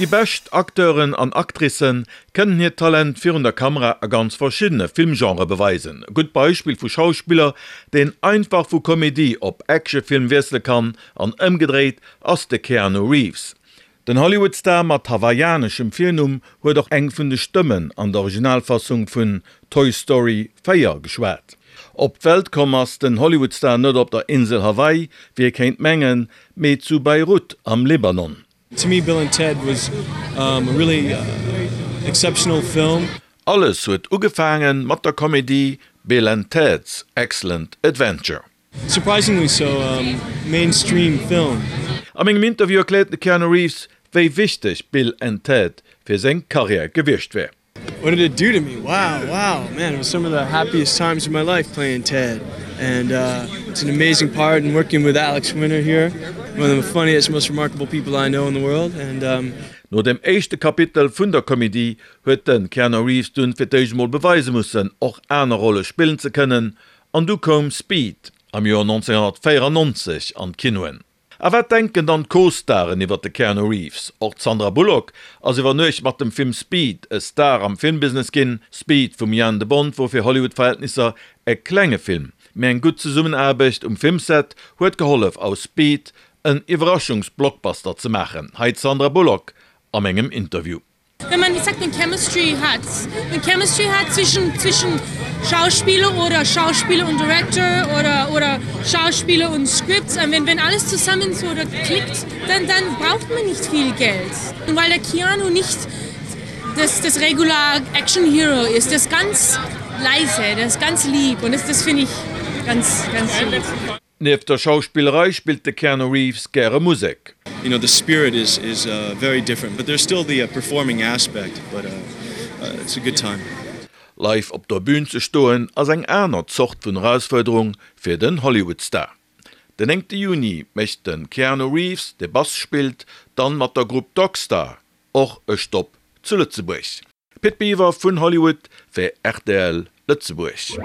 Déi bescht Acteuren an Actricen kënnen hiert Talent virun der Kamera a ganz verschiddene Filmgenrë beweisen. E gutt Beispill vu Schauspiller, deen einfach vu Komedie op Actionfilm wiessele kann an ëmgedréit, ass de Keanu Reeves. Den Hollywood-Star mat hawaiianeschem Virnumm huet och eng vun de Stëmmen an der Originalfassung vun Toy Story 4 geschwat. Op d'Welt komm ass den Hollywood-Star net op der Insel Hawaii, wéi ee kéint mengen, mee zu Beirut am Libanon. To me Bill and Ted was a really exceptional film. Alles huet ugefaange mat der Komedie Bill and Ted's Excellent Adventure. Surprisingly so mainstream film. A mengem Interview erkläert de Keanu Reeves, wéi wichteg Bill and Ted fir seng Karriär gewiescht wär. What did it do to me? Wow, wow, man, it was some of the happiest times of my life playing Ted and it's an amazing part and working with Alex Winter here, one of the funniest, most remarkable people I know in the world and. No dem éischte Kapitel vun der Komedie huet de Keanu Reeves dunn fir d'éischt emol beweise mussen, och aner Rolle spillen ze kënnen An du koum Speed am Joer 1994 an d'Kinoen. A wat denken dann d'Co-Staren iwwert de Keanu Reeves? Och d'Sandra Bullock ass iwwer Nuecht mat dem Film Speed e Star am Filmbusiness ginn. Speed vum Jan de Bont wor fir Hollywood-Verhältnisser e klenge Film, mee eng gutt Zesummenaarbecht um Filmset huet gehollef aus Speed en Iwwerraschungs-Blockbuster ze maachen. Hei d'Sandra Bullock a mengem Interview. Wenn man wie sagt, 'ne Chemistry hat, 'ne Chemistry hat zwischen, zwischen Schauspieler oder Schauspieler und Director oder, oder Schauspieler und Script, wenn, wenn alles zusammen so da klickt, dann, dann braucht man nicht viel Geld. Und weil der Keanu nicht das, das regular Action Hero ist, der ist ganz leise, der ist ganz lieb und das, das finde ich ganz, ganz lieb. Nieft der Schauspillerei spillt de Keanu Reeves gäre Musek. You know the spirit is is very different but there's still the performing aspect but it's a good time. Live op der Bün ze stoen ass eng aner Zort vun Erausfuerderung fir den Hollywood-Star. Den 9 Juni mécht de Keanu Reeves, dee Bass spillt, dann mat der Grupp Dogstar och e Stopp zu Lëtzebuerg. Pit Biwer vun Hollywood fir rtl Lëtzebuerg.